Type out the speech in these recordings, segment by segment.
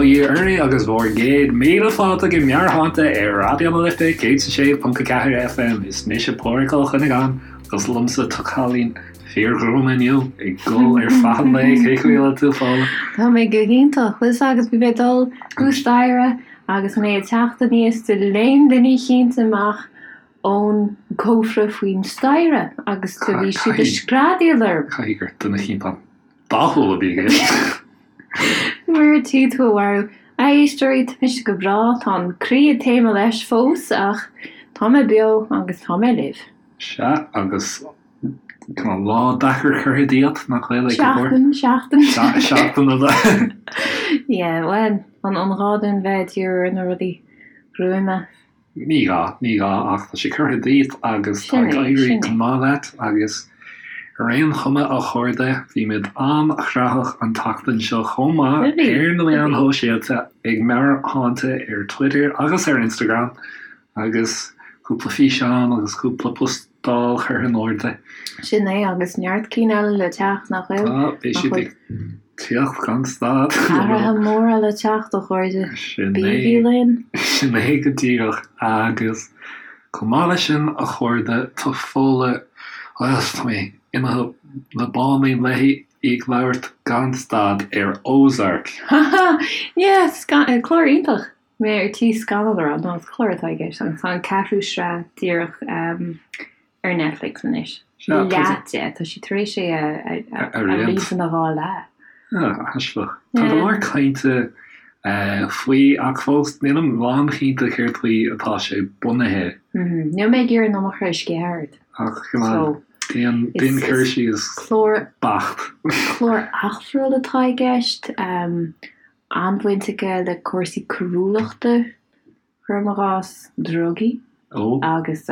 Bail ó Dhia oraibh agus bhur gcéad míle fáilte go Meabhairshláinte ar Raidió na Life 106.4 FM. Is mise Pádraig Ó Cuinneagáin agus liomsa tá cailín fíorghruama inniu ag gol ar feadh an lae. Cén chaoi a bhfuil tú, Fódhla? Tá mé go hiontach. Bhfuil 's agat bhí mé ag dul thuas staighre agus mé ag teacht aníos do léim duine eicínt amach ón gcófra faoin staighre agus do bhí siad ag screadaíl orm. Caithfidh gur duine eicínt an-dathúil a bhí i gceist. Mar tí tú a mharú. A éisteoirí, tá mise go breá, tá an croí ag taomadh leis fós ach tá mé beo agus tá mé libh. Sea, agus tá lá deacair curtha díot, nach bhfuil, ag go leor? Seachtain, seachtain. Seachtain a bheith. Yeah, bhuel, an gá dúinn bheith ag díriú ar na rudaí gruama? Ní gá, ní gá, ach tá sé curtha díot agus tá ag éirí go maith leat agus ar aon chuma, a chairde, bhí muid an-ghnóthach an tseachtain seo chomh maith ar na meáin shóisialta ag Meabhairshláinte ar Twitter agus ar Instagram agus cúpla físeán agus cúpla postáil curtha in airde. Sin é, agus neart cinn eile le teacht, nach bhfuil? Tá, beidh siad ag teacht gan stad. Athruithe móra le teacht, a chairde. Sin é. Bígí linn. Sin é go díreach. Agus chomh maith leis sin, a chairde, tá Fódhla, bhuel, tá mé imithe le báinín léi, í ag labhairt gan stad ar Ozark. Ha ha! Yeah, clár iontach! Mé ar tí scannal a rá, nó is clár atá i gceist agus tá an ceathrú sraith díreach ar Netflix anois. Leath de, tá siad tar éis é a roinnt ina dhá leath. Aisteach. Tá go leor cainte faoi ach fós nílim lánchinnte céard faoi atá sé bunaithe. Níl mé ag iarraidh an iomarca a sceitheadh ort. Ach come on, déan cur síos beacht. Clár eachtrúil atá i gceist. An-bhaint aige le cúrsaí coiriúlachta, cuirim i gcás, drugaí agus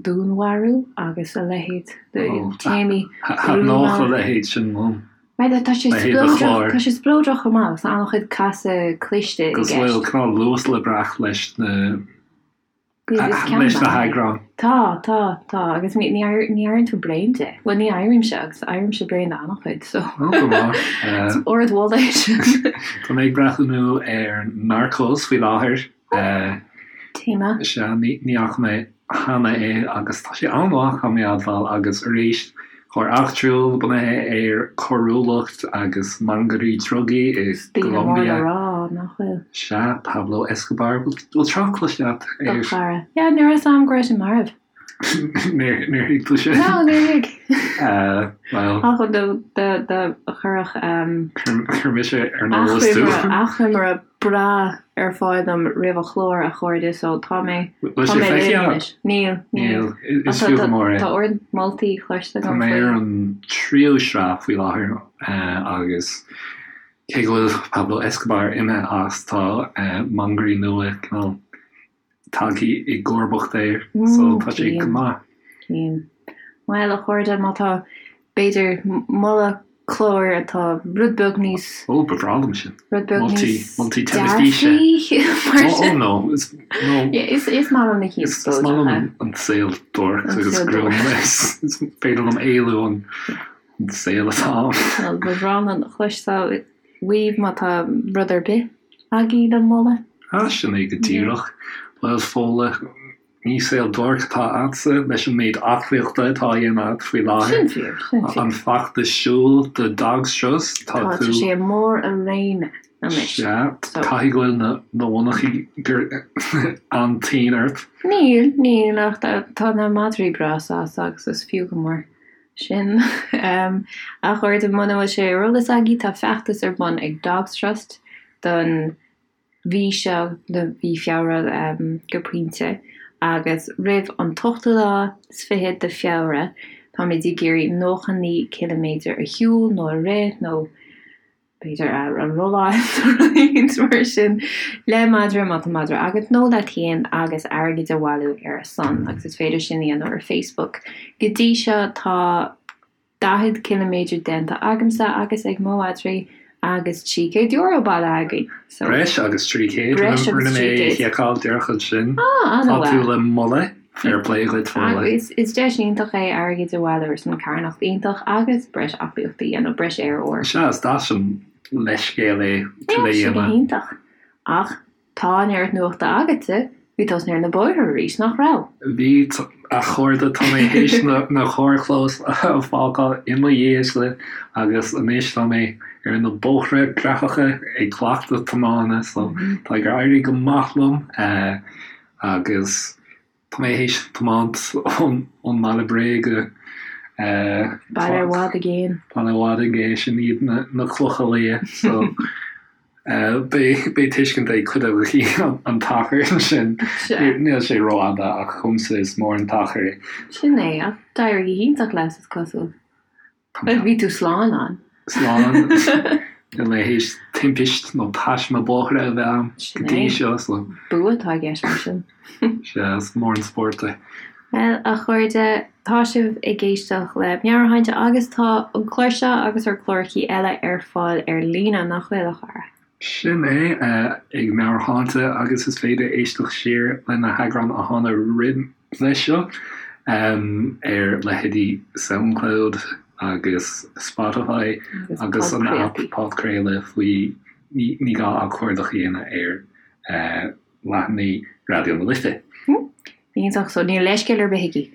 dúnmharú agus a leithéid de théamaí gruama. Thaitneodh a leithéid sin liom. Tá sé spleodrach, tá sé spleodrach chomh maith agus tá an-chuid casadh cliste i gceist. Agus bhfuil cineál luas le brath leis na leis na heagráin. Tá, tá, tá, agus ní éiríonn tú bréan de. Bhuel, ní éirímse, agus éirímse bréan de an-chuid, so. Ó, go maith. Is ardmholadh é sin. Tá mé ag breathnú ar Narcos faoi láthair. Téama. Sea, ní fhaca mé cheana é agus tá sé an-mhaith, caithfidh mé a admháil, agus arís, Clár eachtrúil bunaithe ar choiriúlacht agus mangairí drugaí i Daoine mór le gColombia. rá, nach bhfuil? Sea, Pablo Escobar. Bhfuil trácht cloiste agat Do air? chara. Yeah, ní raibh 'fhios a'm go raibh sé marbh. Níor thuig tú sin? No, níor thuig. Bhuel. Ach do do chuirfeadh Chuir mise ar an eolas tú. achoimre breá ar fáil dom roimh an chlár, a chairde, so tá mé, Bhfuil tá sé mé feicthe libh agat? anois. Níl, Níl. níl. Is fiú go mór é. Tá ard moltaí cloiste Tá agam mé faoi. ar an tríú sraith faoi láthair agus cé go bhfuil Pablo Escobar imithe as, tá mangairí nua cineál tagtha i gcomharbacht air so tá sé go maith. Cím. Bhuel, a chairde, má tá, b'fhéidir, moladh cláir atá rud beag níos. Ó, ba bhreá liom sin. Rud beag níos. Moltaí teilifíse. Dearfaí, mar sin. Ó, no. Is, no. Is, is maith liom na cinn Is maith liom an saol dorch agus gruama. Is féidir liom éalú ón saol atá ann. Bhuel, ba bhreá liom a chloisteáil uaibh má tá rud ar bith agaibh le moladh. Ah, sin é go díreach. Bhuel, Fódhla, ní saol dorch atá agatsa leis an méid aclaíochta atá á dhéanamh agat faoi láthair. Sin fíor, sin fíor. An feachtas siúil do Dogs Trust, tá tú. Tá sé i mbarr a réime anois. Sea, caithfidh go bhfuil na monarchanaí an-tinn ort. Níl, níl, ach tá na madraí breá sásta agus is fiú go mór. Sin. A chairde, muna bhfuil sé ar eolas agaibh, tá feachtas ar bun ag Dogs Trust don mhí seo, do mhí Feabhra go pointe, agus roimh an t-ochtú lá is fichead de Feabhra, táimid ag iarraidh 99 ciliméadar a shiúl nó a rith nó b'fhéidir a rolláil nó rud éigin mar sin le madra, má tá madra agat, nó leat féin agus airgead a bhailiú ar a son agus is féidir sin a dhéanamh ar Facebook. Go dtí seo tá 40 ciliméadar déanta agamsa agus ag mo mhadraí agus €300 bailithe againn. So, Breis agus 300, breis agus rinne mé 300. seiceáil díreach ansin. Ah, Tá an-mhaith. tú le moladh, fair play dhuit Fódhla. Agus is deis iontach é airgead a bhailiú ar son carthanacht iontach agus breis aclaíochta a dhéanamh, breis aer úr. Sea, is deas an. leithscéal é Tá sé go hiontach. Ach tá an oiread nuachta agatsa, bhí tusa ar na bóithre arís, nach raibh? Bhí, a chairde, tá mé théis na carrchlóis a fhágáil i mo dhiaidhse agus anois tá mé ar na bóithre graitheacha ag cleachtadh tiomána so tá ag éirí go maith liom agus Tá mé théis tiomáint ón mBaile Bréa go. Baile i bhfad i gcéin. Baile i bhfad i gcéin, sin iad na Clocha Liath. So beidh tuiscint ag cuid agaibh an t-achar sin. Níl sé rófhada ach dhomsa is mór an t-achar é. Sin é, ach d'éirigh go hiontach leat is cosúil. Bhuel, bhí tú slán ann. Slán. Níl mé théis timpist nó taisme bóithre a bheith a'm go dtí seo, so. Bua atá i gceist mar sin. Sea, is mór an spórt é. Bhuel, a chairde, tá sibh ag éisteacht le Meabhairshláinte agus tá an clár seo agus ár gclárachaí eile ar fáil ar líne, nach bhfuil, a chara? Sin é, ag Meabhairshláinte agus is féidir éisteacht siar le na heagráin a tháinig roimhe seo ar leithéidí Soundcloud agus Spotify agus an aip podchraoladh faoi ní gá ach cuardach a dhéanamh ar leathanaigh Raidió na Life. Iontach, so níl leithscéal ar bith aici.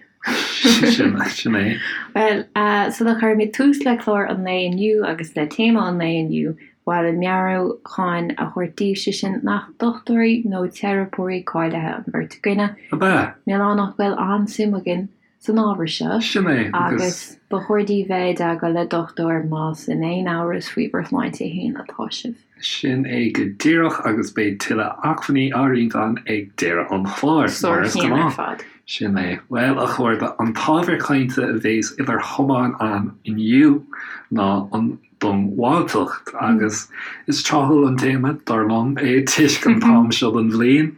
Sin, sin é. Bhuel, sula gcuirimid tús le clár an lae inniu agus le téama an lae inniu, ba mhaith linn meabhrúchán a thabhairt daoibh, sé sin nach dochtúirí nó teiripeoirí cáilithe an bheirt againne. Ab ea? Níl ann ach go bhfuil an-suim againn san ábhar seo. Sin é, agus. Agus ba chóir daoibh bheith i dteagmháil le dochtúir más in aon amhras faoi bhur sláinte féin atá sibh. Sin é go díreach agus beidh tuilleadh acmhainní á roinnt againn ag deireadh an chláir, mar is Sárchéim ar gnáth. fad. Sin é. Bhuel, a chairde, an t-ábhar cainte a bhéas idir chamáin againn inniu ná an diongbháilteacht agus is tráthúil an téama, dar liom, é toisc an t-am seo den bhliain.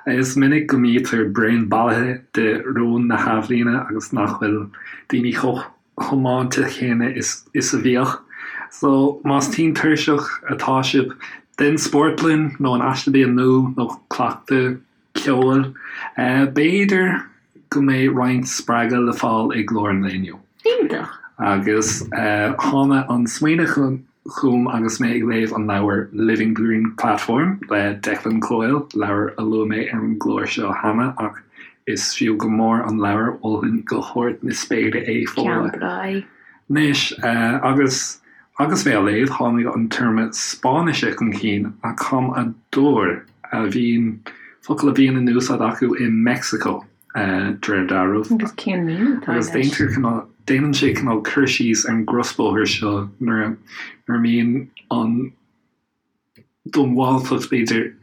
Is minic go mbítear bréan bailithe de rún na hathbhliana agus nach bhfuil daoine chomh tiomáinte céanna is a bhíodh. So, más tinn tuirseach atá sibh den spórt linn, nó an aiste bia nua, nó cleachtadh ceoil, b'fhéidir go mbeidh roinnt spreagadh le fáil i gclár an lae inniu. Iontach! Agus tháinig an smaoineamh chugam agus mé ag léamh an leabhair Living Green Platform le Declan Coyle, leabhar a luaigh mé ar an gclár seo cheana ach is fiú go mór an leabhar, mholfainn go hard na spéire é, Fódhla. Ceann breá é. Anois, agus agus mé á léamh, tháinig an téarma Spáinnise chun cinn, acamador, a bhíonn, focal a bhíonn in úsáid acu i Meicsiceo. de réir dealraimh. Agus cén míniú atá leis? Agus déantar cineál, déanann sé cineál cur síos ar an gcrosbhóthar seo nuair a, nuair a mbíonn an diongbháilteacht b'fhéidir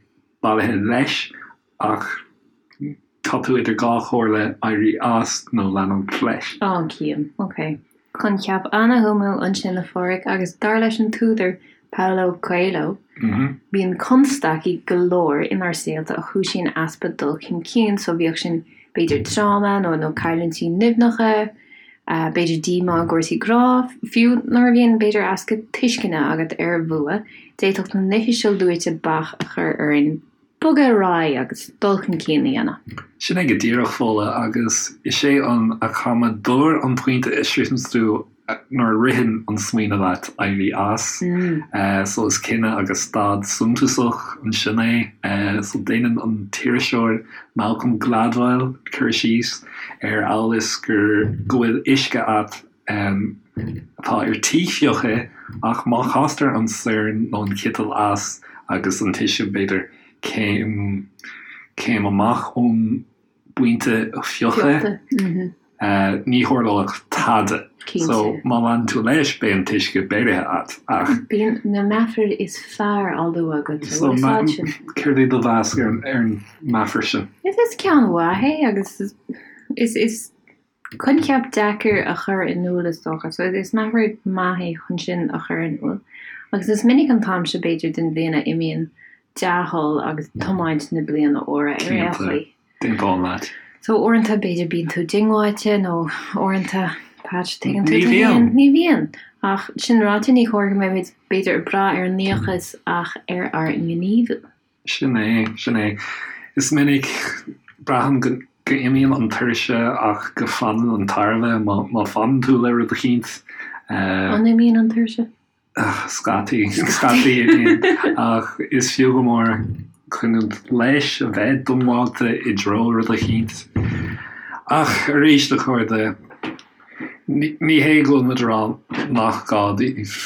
bailithe leis ach tá tú idir dhá chomhairle, éirí as nó leanúint leis. Á, cím. Ok. Coincheap ana-shuimiúil ansin a Pháraic agus dar leis an t-údar Paulo Coelho, bíonn constaicí go leor inár saolta a chúisíonn easpa dul chun cinn, so bíodh sin b'fhéidir tráma nó nó cailliúintí nimhneacha, b'fhéidir díomá i gcúrsaí grá, fiú nuair a bhíonn b'fhéidir easpa tuisceana agat ar bhua, d'fhéadfadh na nithe seo luaite bac a chur orainn bogadh ar aghaidh agus dul chun cinn a dhéanamh. Sin é go díreach, Fódhla, agus is é an acamador an pointe a sroicheanns tú nuair a ritheann an smaoineamh leat éirí as. So is cinneadh agus stad suntasach ansin é. So déanann an t-iriseoir Malcolm Gladwell cur síos ar amhail is gur go bhfuil uisce agat atá ar tí fiuchadh ach má chastar an sorn nó an citeal as agus an t-uisce b'fhéidir céim céim amach ón bpointe fiuchadh ní tharlóidh tada. So má leanann tú leis beidh an t-uisce beirithe agat ach. Bíonn na meafair is fearr á lua agat so céard é do mheas ar an meafar sin? Is ceann mhaith é agus is is Coincheap deacair a chur in iúl is dócha. So is meafar maith é chun sin a chur in iúl. Agus is minic an t-am seo b'fhéidir den bhliain a imíonn dea-thoil agus tiomáint na bliana úire ar aon chaoi. Cinnte, d'aontóinn leat. So uaireanta b'fhéidir bíonn tú diongbháilte nó uaireanta, Pat, tuigeann tú Ní bhíonn. Ní bhíonn. Ach sin ráite ní chóir go mbeimid b'fhéidir ag brath ar an ndíocas ach ar ár ngníomhú. Sin é, sin é. Is minic, braithim go n-imíonn an tuirse ach go fanann an tairbhe má fanann tú le rud eicínt. An imíonn an tuirse? Scaití, scaití I mean, ach is fiú go mór coinneáil leis, a bheith diongbháilte i dtreo rud eicínt. Ach arís, a chairde, ní hé go bhfuil muid a rá nach gá daoibh,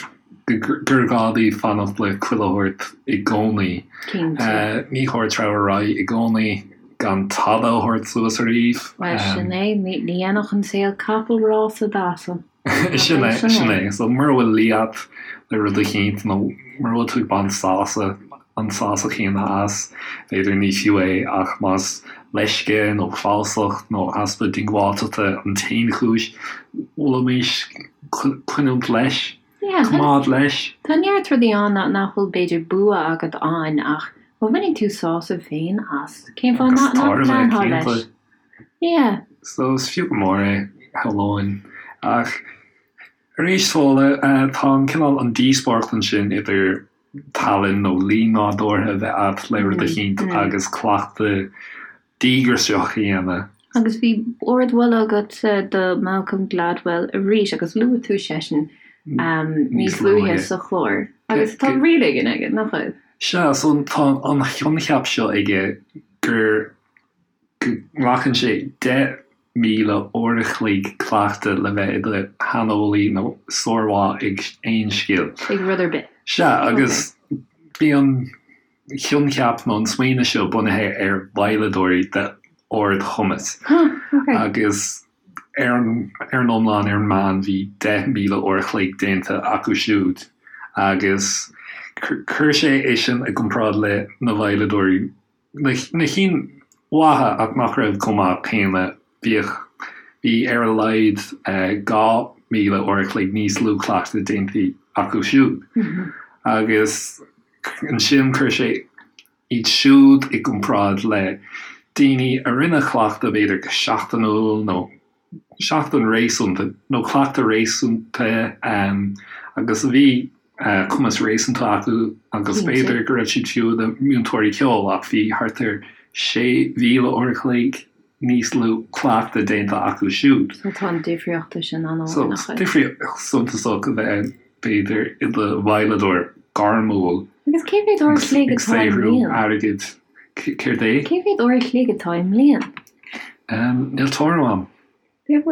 gur gá daoibh fanacht le chuile shórt i gcónaí. Cinnte. Ní chóir treabhadh ar aghaidh i gcónaí gan tada a thabhairt suas ariamh. Bhuel, sin é, ní dhéanfadh an saol capall rása d'asal. Sin é, sin é. So mura bhfuil luí a't le rud eicínt nó mura bhfuil tú ag baint sásamh, an sásamh céanna as, b'fhéidir ní fiú é ach más leisce nó falsacht nó easpa diongbháilteachta an t-aon chúis, mholfaimis coinneáilt leis, coimeád leis. Tá neart rudaí ann nach bhfuil b'fhéidir bua agat ann ach má bhaineann tú sásamh féin as, cén fáth nach leanfá leis? Yeah. So is fiú go mór é, shamhlóinn. Ach arís, Fódhla, tá an cineál, an díospóireacht ansin idir tallann nó luí nádúrtha a bheith a't le rud eicínt agus cleachtadh díograiseach a dhéanamh. Agus bhí ardmholadh agatsa do Malcolm Gladwell arís agus luaigh tú seisean níos luaithe sa chlár. Agus tá riail éigin aige, nach bhfuil? Sea, so tá an coincheap seo aige gur go nglacann sé 10,000 uair a chloig cleachtaidh le bheith i do shaineolaí nó sármhaith ag aon scil. Ag rud ar bith. Sea, agus bhí an coincheap nó an smaoineamh seo bunaithe ar veidhleadóirí d'ardchumas. Agus ar an ar an iomlán, ar an meán, bhí 10,000 uair a chloig déanta acu siúd. Agus chuir sé é sin i gcomparáid le na veidhleadóirí Na cinn mhaithe ach nach raibh chomh maith céanna, bhíodh, bhí ar a laghad 2,000 uair a chloig níos lú cleachtaidh déanta acu siúd. Agus ansin chuir sé iad siúd i gcomparáid le daoine a rinne cleachtadh b'fhéidir go seachtainiúil nó seachtain réasúnta nó cleachtadh réasúnta agus a bhí cumas réasúnta acu agus b'fhéidir go raibh siad fiú ina múinteoirí ceoil ach bhí thart ar 6,000 uair a chloig níos lú cleachtaidh déanta acu siúd. So tá an difríocht sin an-mhór, So nach bhfuil? difríocht suntasach a bheith b'fhéidir i do veidhleadóir gairmiúil Agus cé mhéad uair a chloig ag atá i saothrú mbliain? airgid. Céard é? Cé mhéad uair a chloig atá i mbliain? Níl tuairim a'm. Nach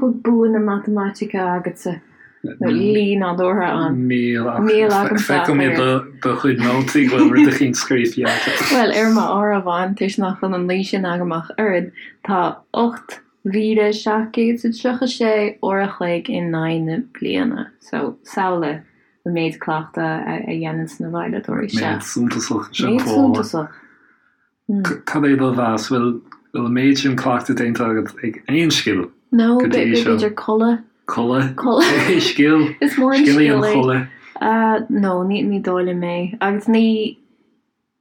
bhfuil bua na matamaitice agatsa nó luí nádúrtha ann? Níl ach Níl agamsa feicim i do chuid nótaí go bhfuil rud eicínt scríofa agat. Bhuel, ar m'áireamhán, toisc nach bhfuil an luí sin agam ach oiread, tá 8,736 uair a chloig in aghaidh na bliana. So, samhlaigh an méid cleachtaidh a dhéananns na veidhleadóirí seo. Méid suntasach sin Méid suntasach. Cad é do mheas? Bhfuil an méid sin cleachtaidh déanta agat ag aon scil No, go dtí seo? b'fhéidir codladh. Codladh? Codladh. Scil? Is mór an Scil í an scil é. chodladh. No, ní ní dóigh liom é. Agus ní,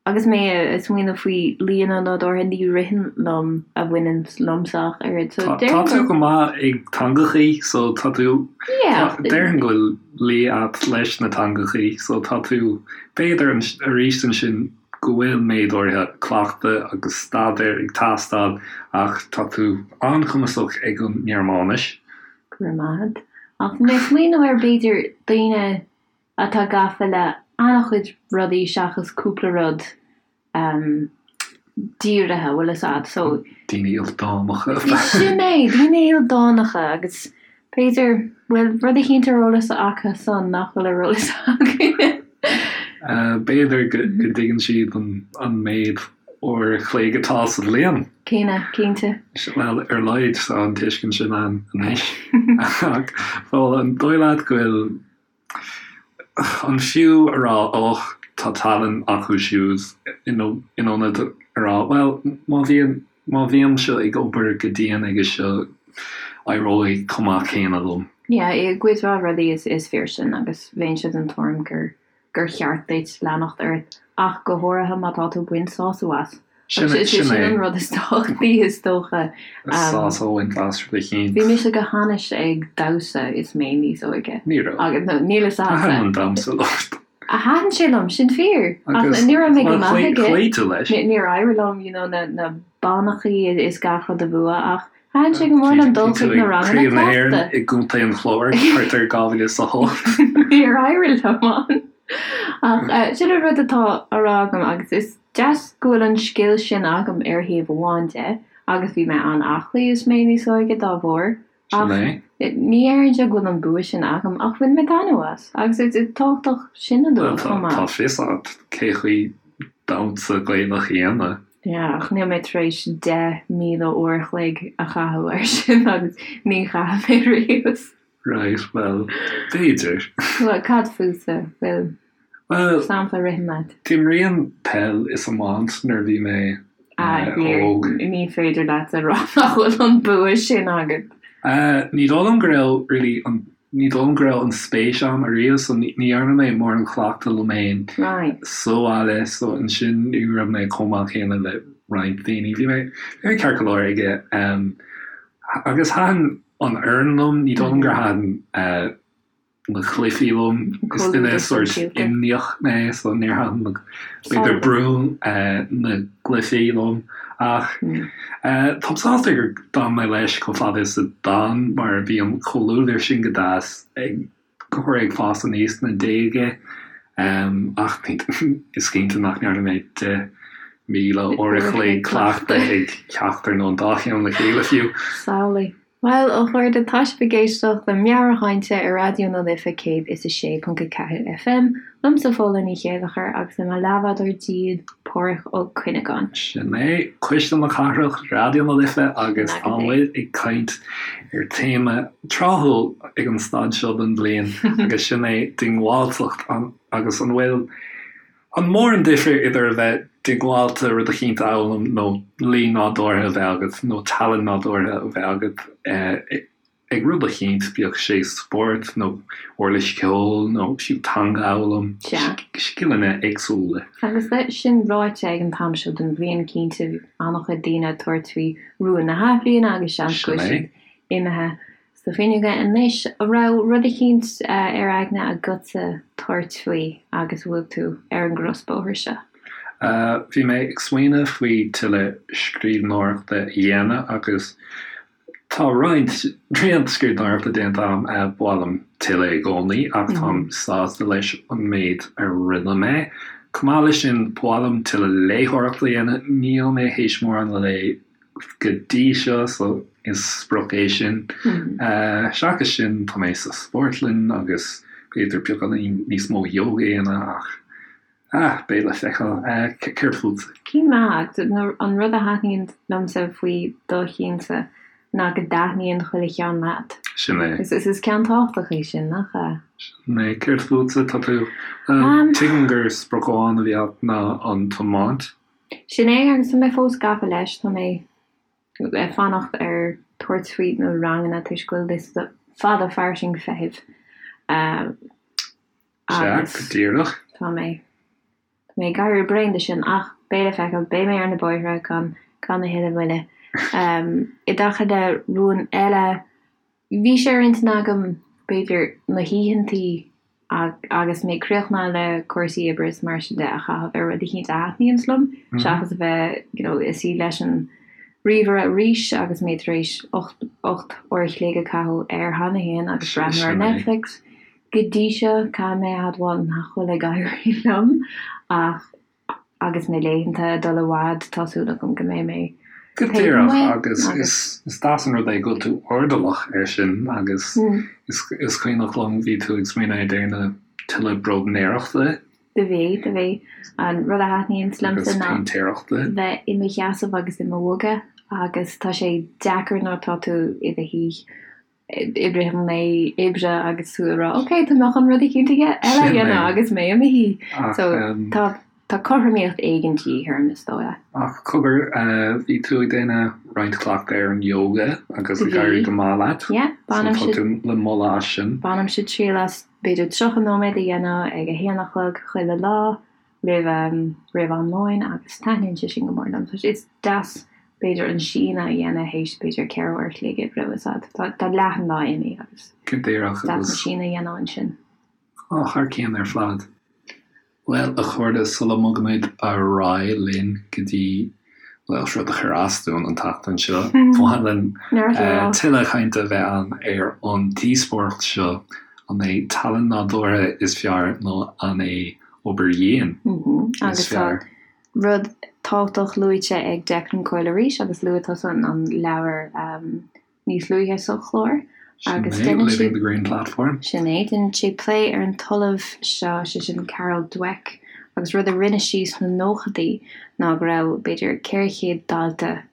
agus mé ag smaoineamh faoi luíonna nádúrtha, ní ritheann liom a bhaineann liomsa ach oiread. So Tá déarfainn tú gur. go maith ag teangachaí, so tá tú, Yeah. déarfainn go bhfuil luí a't leis na teangachaí, so tá tú, b'fhéidir arís ansin, go bhfuil méid áirithe cleachtaidh agus staidéir ag teastáil ach tá tú an-chumasach ag an nGearmáinis. Go raibh maith agat. Ach mé ag smaoineamh ar b'fhéidir daoine atá gafa le an-chuid rudaí seachas cúpla rud dírithe, bhfuil fhios a'd, so. Daoine ildánacha. Sin é, daoine ildánacha agus B'fhéidir, bhfuil rud eicínt ar eolas acu san nach bhfuil ar eolas againne. B'fhéidir go dtuigeann siad an méid uair a chloig atá sa bhliain. Céanna, cinnte. Bhuel, ar a laghad tá an tuiscint sin ann anois. Ach, bhuel, an dóigh leat go bhfuil An fiú a rá och, tá tallann acu siúd in ionad a rá bhuel, má bhíonn, má bhímse ag obair go dian aige seo, éireoidh chomh maith céanna liom. Yeah, i gcuid mhaith rudaí is fíor sin agus bheinnse den tuairim gur gur cheart duit leanacht ort ach go háirithe má tá tú ag baint sásamh as. Sin é, sin é. an rud is tábhachtaí is dócha. Sásamh a bhaint as rud eicínt. Bhí mise go hainnis ag damhsa is mé níos óige. Ní raibh. Agus no, níl fhios a'dsa. Thaitin an damhsa leat. Thaitin sé liom, sin fíor. Ach ní raibh mé go maith aige. Chloígh tú leis. Níor éirigh liom, you know, na na bannachaí is gach rud a bhua ach. Thaitin sé go mór liom dul chuig na ranganna Craobh na hÉireann i gContae an Chláir thart ar 2008. Níor éirigh liom ann. Ach sin an rud atá á rá agam agus is deas go bhfuil an scil sin agam ar thaobh amháin de agus bhí mé an-aclaí is mé níos óige dá bharr ach ní déarfainnse go bhfuil an bua sin agam ach bhain mé taitneamh as agus is tábhachtach sin a lua chomh maith. Tá fios agat cé chaoi damhsa Gaelach a dhéanamh. Yeah, ach níl mé tar éis 10,000 uair a chloig a chaitheamh air sin agus ní chaithfidh mé riamh. Right, bhuel, b'fhéidir. Bhuel, cad fútsa? Bhfuil Bhuel, sampla ritheann leat? D'imrínn peil is iomáint nuair a bhí mé Ah, óg. Ní féidir leat a rá nach bhfuil an bua sin agat. Ní dóigh liom go raibh really an Ní dóigh liom go raibh an spéis a'm ariamh so ní dhearna mé mórán cleachtadh liom fhéin sa bhaile so ansin ní raibh mé chomh maith céanna le roinnt daoine. Bhí mé bhí mé ceart go leor aige agus thaitin an fhoireann liom, ní dóigh liom gur thaitin na cluichí liom. Is duine sórt imníoch mé so níor thaitin na b'fhéidir brú na gcluichí liom ach táim sásta gur d'fhan mé leis chomh fada is a d'fhan mar bhí an comhluadar sin go deas ag go ag fás aníos sna déaga ach is cinnte nach ndearna mé 10,000 uair a chloig cleachtaidh ag ceachtar nó an dá cheann le chéile fiú. Samhlaigh. Bhuel, a chairde, tá sibh ag éisteacht le Meabhairshláinte ar Raidió na Life 106.4 FM, liomsa Fódhla Ní Chéilleachair agus le mo leathbhádóir díl, Páraic Ó Cuinneagáin. Sin é, Cuisle na Cathrach, Raidió na Life agus tá muid ag caint ar téama tráthúil ag an staid seo den bhliain agus sin é diongbháilteacht agus an bhfuil An mór an difear idir a bheith diongbháilte rud eicínt a fhoghlaim nó luí nádúrtha a bheith agat nó tallann nádúrtha a bheith agat ag rud eicínt, bíodh sé spórt nó uirlis cheoil nó fiú teanga a fhoghlaim, scileanna éagsúla. Agus leis sin ráite, ag an t-am seo den bhliain, cinnte, bhí an-chuid daoine ag tabhairt faoi rúin na hathbhliana agus seans go bhfuil siad imithe Sna fuinneoga anois, an raibh rud eicínt ar aigne agatsa tabhairt faoi agus a bhfuil tú ar an gcrosbhóthar seo? Bhí mé ag smaoineamh faoi tuilleadh scríbhneoireachta a dhéanamh agus tá roinnt roinnt scríbhneoireachta déanta agam. Ba mhaith liom tuilleadh i gcónaí ach táim sásta leis an méid a rinne mé. Chomh maith leis sin, ba mhaith liom tuilleadh léitheoireachta a dhéanamh. Níl mé théis mórán a léamh go dtí seo so is sprioc é sin. Seachas sin tá mé sa spórtlann agus b'fhéidir beagáinín níos mó yoga a dhéanamh ach ah beidh le feiceáil. Céard fútsa? Cinn maith agus an rud a thaitníonn liomsa faoi do chinnse ná go dtaitníonn chuile cheann leat. Sin é. Is is ceann tábhachtach é sin, nach ea? Sin é. Céard fútsa? Tá tú, tuigim gur sprioc amháin a bhí agat ná an tiomáint. Sin é, agus tá mé fós gafa leis, tá mé ag fanacht ar tabhairt faoi na ranganna toisc go bhfuil liosta fada fairsing feithimh Sea, go díreach. Tá mé, tá mé ag éirí bréan de sin ach beidh le feiceáil, beidh mé ar na bóithre gan, gan a thuilleadh moille. I dtaca le rún eile, Bhí sé ar intinn agam, b'fhéidir, na hoícheantaí agus mé críochnaithe le cúrsaí oibre is mar sin de a chaitheamh ar rud eicínt a thaitníonns liom, seachas a bheith, you know, ag suí leis an ríomhaire arís agus mé tar éis 8 uair a chloig a caitheamh air cheana féin agus breathnú ar Netflix. Go dtí seo, caithfidh mé a admháil nach bhfuil ag éirí liom ach Agus na laethanta ag dul i bhfad, tá súil agam go mbeidh mé Go díreach, agus is deas an rud é go bhfuil tú airdeallach air sin agus is cuimhneach liom bhí tú ag smaoineamh ar déanamh tuilleadh bróidnéireachta. Do bhí, do bhí. An rud a thaitníonns liomsa ná péintéireachta. bheith i mo sheasamh agus i mo bhogadh agus tá sé deacair nuair atá tú i do shuí i rith an lae oibre agus tú ag rá ok tá mé chun rud eicínt eile a dhéanamh agus mé i mo shuí. So tá tá cothromaíocht éigin de dhíth orm is dóigh. Ach cogar, bhí tú ag déanamh roinnt cleachtaidh ar an yoga agus ag éirí go maith leat. Yeah, bainimse. So tá tú le moladh as sin. Bainimse triail as b'fhéidir 30 nóiméad a dhéanamh ag a haon a chlog chuile lá. roimh roimh am lóin agus taitníonn sé sin go mór liom. Tá sé is deas b'fhéidir an síneadh a dhéanamh théis b'fhéidir 4 uair a chloig oibre bhfuil a fhios agat. Tá tá leath an lá imithe agus Go díreach deas an síneadh a dhéanamh ansin. Á, thar cionn ar fad. Bhuel, a chairde, sula mbogaimid ar aghaidh linn go dtí. Bhuel, rud a chuir as dúinn an tseachtain seo, baineann tuilleadh cainte a bheith ann ar an díospóireacht seo, an é tallann nádúrtha is fearr nó an é obair dhian is fearr? Agus tá rud tábhachtach luaite ag Declan Coyle arís, agus luaigh tusa an leabhar níos luaithe sa chlár agus Sin é, déanann sé Living the Green Platform. Sin é, déanann sé plé ar an t-ollamh seo, sé sin Carol Dweck, agus rud a rinne sí sna nóchaidí ná go raibh b'fhéidir 400 dalta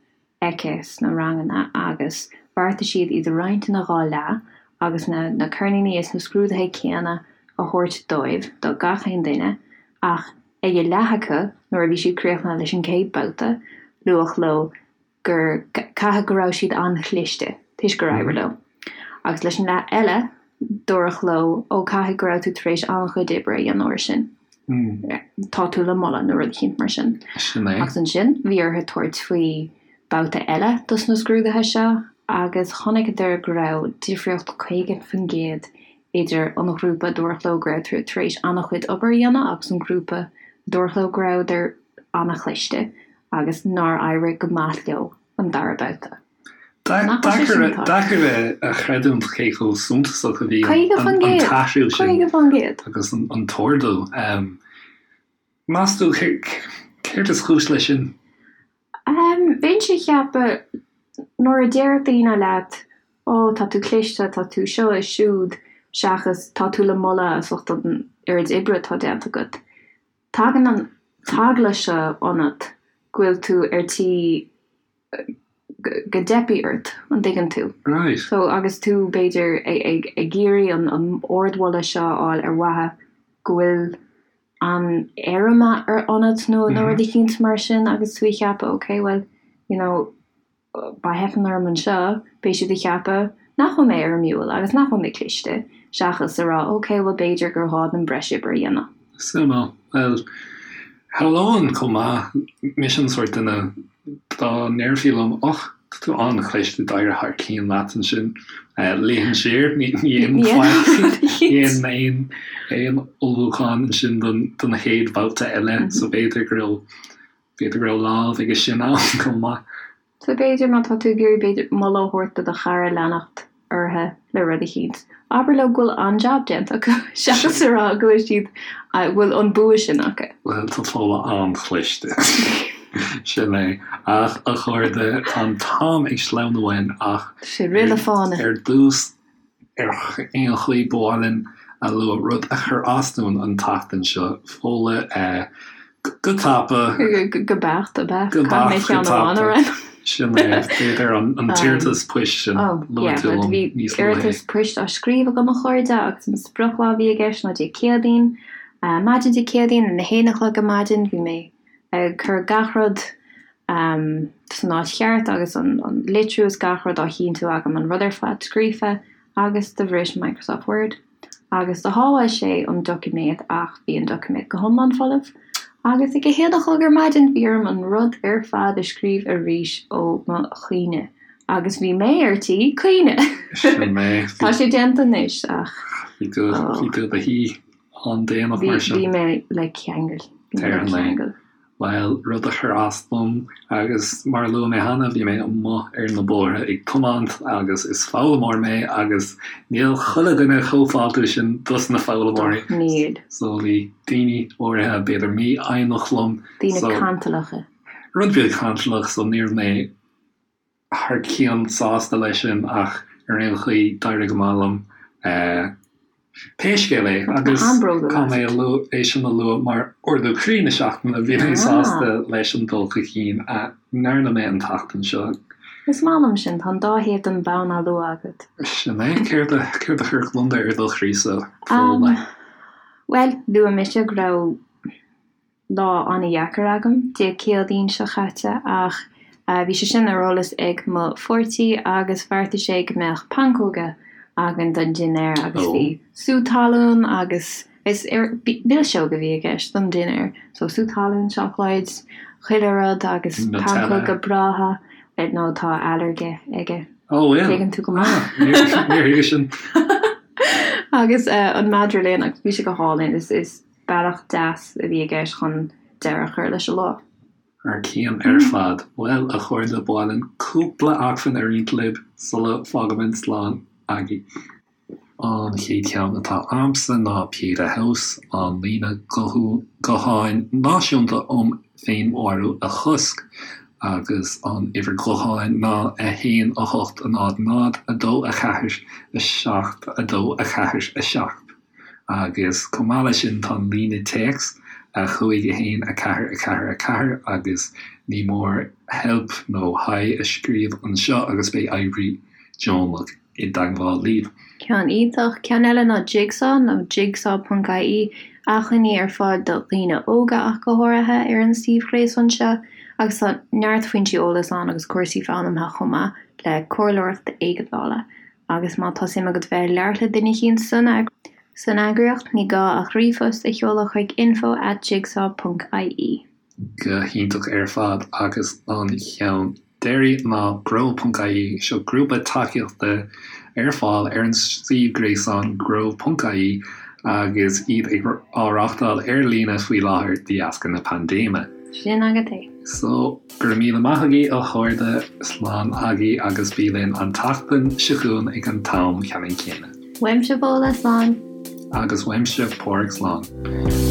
aici sna ranganna agus bheartaigh siad iad a roinnt ina dhá leath agus na na ceirníní is na scrúduithe céanna a thabhairt dóibh, do gach aon duine, ach ag a leath acu nuair a bhí siad críochnaithe leis an gcéad babhta, luadh leo gur caithfidh go raibh siad an-chliste toisc gur éirigh leo. Agus leis an leath eile, dúradh leo, ó caithfidh go raibh tú tar éis an-chuid oibre a dhéanamh air sin. Tá tú le moladh nó rud eicínt mar sin. Sin é. Agus ansin, bhí orthu tabhairt faoi babhta eile dos na scrúduithe seo agus chonaiceadar go raibh difríocht 50% idir an ghrúpa a dúradh leo go raibh tar éis an-chuid obair a dhéanamh agus an grúpa a dúradh leo go rabhadar an-chliste. agus nár éirigh go maith leo an dara babhta. Deacair a chreidiúint cé chomh suntasach a bhí an t-athrú sin 50%! agus an t-ardú. Meas tú céard is cúis leis sin? Bheinnse ag ceapadh nuair a deir daoine leat 'Ó, tá tú cliste, tá tú seo is siúd' seachas 'tá tú le moladh as ucht an oiread oibre atá déanta agat'. Tagann an t-eagla seo ionat go bhfuil tú ar tí go dteipfidh ort, an dtuigeann tú? Right. So agus tú b'fhéidir ag ag iarraidh an an ardmholadh seo a fháil ar mhaithe go bhfuil an éirim ar ionat nó nó rud eicínt mar sin agus tú ag ceapadh ok well you know má theipeann orm anseo, beidh siad ag ceapadh nach bhfuil mé éirimiúil agus nach bhfuil mé cliste, seachas a rá ok, bhuel b'fhéidir gur ghá dom breis oibre a dhéanamh. Suimiúil. Bhuel, shamhlóinn chomh maith, mise an sórt duine, dá ndéarfaí liom, och, tá tú an-chliste, d'éirigh thar cionn leat ansin, luífinn siar, ní dhéanfainn faic, ní dhéanfainn aon ullmhúchán ansin don chéad bhabhta eile, so b'fhéidir go raibh B'fhéidir go raibh lámh aige sin ann chomh maith. So b'fhéidir má tá tú ag iarraidh b'fhéidir moladh a thabhairt do do chara leanacht orthu le rud eicínt, abair leo go bhfuil an-jab déanta acu seachas a rá go bhfuil siad, go bhfuil an bua sin acu. Bhuel, tá Fódhla an-chliste. Sin é. Ach, a chairde, tá an t-am ag sleamhnú uainn ach Tá sé ag rith le fána. ar dtús, Ar aon chaoi, ba mhaith linn a lua rud a chuir as dúinn an tseachtain seo, Fódhla, go tapa. Go beacht, ab ea? Go beacht, go tapa. Sin é, b'fhéidir an t-iarratas poist sin a luaigh tú liom níos luaithe. Bhí iarratas poist á scríobh agam, a chairde, agus an sprioclá a bhí i gceist ná Dé Céadaoin. Maidin Dé Céadaoin, ag a haon a chlog ar maidin, bhí mé ag cur gach rud san áit cheart agus an litriú is gach rud á chinntiú agam, an rud ar fad scríofa agus do bhris Microsoft Word agus do shábháil sé an doiciméad ach bhí an doiciméad go hiomlán folamh agus ag a haon a chlog ar maidin bhí orm an rud ar fad a scríobh arís ó mo chuimhne agus bhí mé ar tí caoineadh! Sin mé. Tá sé déanta anois ach. Bhí tú bhí tú i do shuí an-déanach mar sin. Bhí mé le ceangal. Bhí mé le ceangal. Bhuel, rud a chuir as dom, agus mar a luaigh mé cheana, bhí mé amuigh ar na bóithre ag tiomáint agus is foghlaimeoir mé agus níl chuile dhuine chomh fáiltiúil sin dos na foghlaimeoirí. Níl. So bhí daoine áirithe, b'fhéidir mífhoighneach liom. Daoine cantalacha. Rud beag cantalach, so ní raibh mé thar cionn sásta leis sin ach ar aon chaoi d'éirigh go maith liom pé scéal é agus caithfidh mé a lua é sin a lua mar ardú croí na seachtaine, bhí mé sásta leis an dul chun cinn a ndearna mé an tseachtain seo. Is maith liom sin, tá an dá thaobh den bhonn á lua agat. Sin é, céard a céard a chuir gliondar ar do chroí-sa, Fódhla? Bhuel, luaigh mise go raibh lá an-dheacair agam Dé Céadaoin seo chaite ach bhí sé sin ar eolas ag mo pháirtí agus bheartaigh sé go mbeadh pancóga againn don dinnéar agus bhí sú talún agus is milseog a bhí i gceist don dinnéar so sú talún, seacláid, chuile rud agus pancóga breátha nó tá ailléirge aige. Ó bhfuil? Tuigeann tú go maith. Níor thuigeas sin. Agus an madra linn agus bhí sé go hálainn is is Bealach deas a bhí i gceist chun deireadh a chur leis an lá. Thar cionn ar fad. Bhuel, a chairde, ba mhaith linn cúpla acmhainn a roinnt libh sula bhfágaimid slán agaibh. An chéad cheann atá a'msa ná Pieta House, an líne gutháin náisiúnta um féinmharú a chosc, agus an uimhir ghutháin ná 1 8 0 0 2 4 7 2 4 7. Agus chomh maith leis sin tá an líne téacs, 5 1 4 4 4, agus ní mór help nó hi a scríobh anseo agus beidh oibrí deonach i dteagmháil libh. Ceann iontach. Ceann eile ná Jigsaw nó jigsaw ponc ie, acmhainní ar fáil do dhaoine óga ach go háirithe ar an suíomh ghréasáin seo agus tá neart foinsí eolais ann agus cúrsaí foghlamtha chomh maith le comhairleoireacht éigeandála. Agus má tá suim agat bheith ag labhairt le duine eicínt san eagraíocht, ní gá ach ríomhphost a sheoladh chuig info at jigsaw ponc ie. Go hiontach ar fad agus an cheann deiridh ná grow ponc ie, seo grúpa tacaíochta ar fáil ar an suíomh gréasáin grow ponc ie agus iad ag á reáchtáil ar líne faoi láthair de dheasca na paindéime. Sin agat é. So. Go raibh míle maith agaibh a chairde, slán agaibh agus bí linn an tseachtain seo chugainn ag an t-am ceannann céanna. Uaimse Fódhla, slán. Agus uaimse Páraic, slán.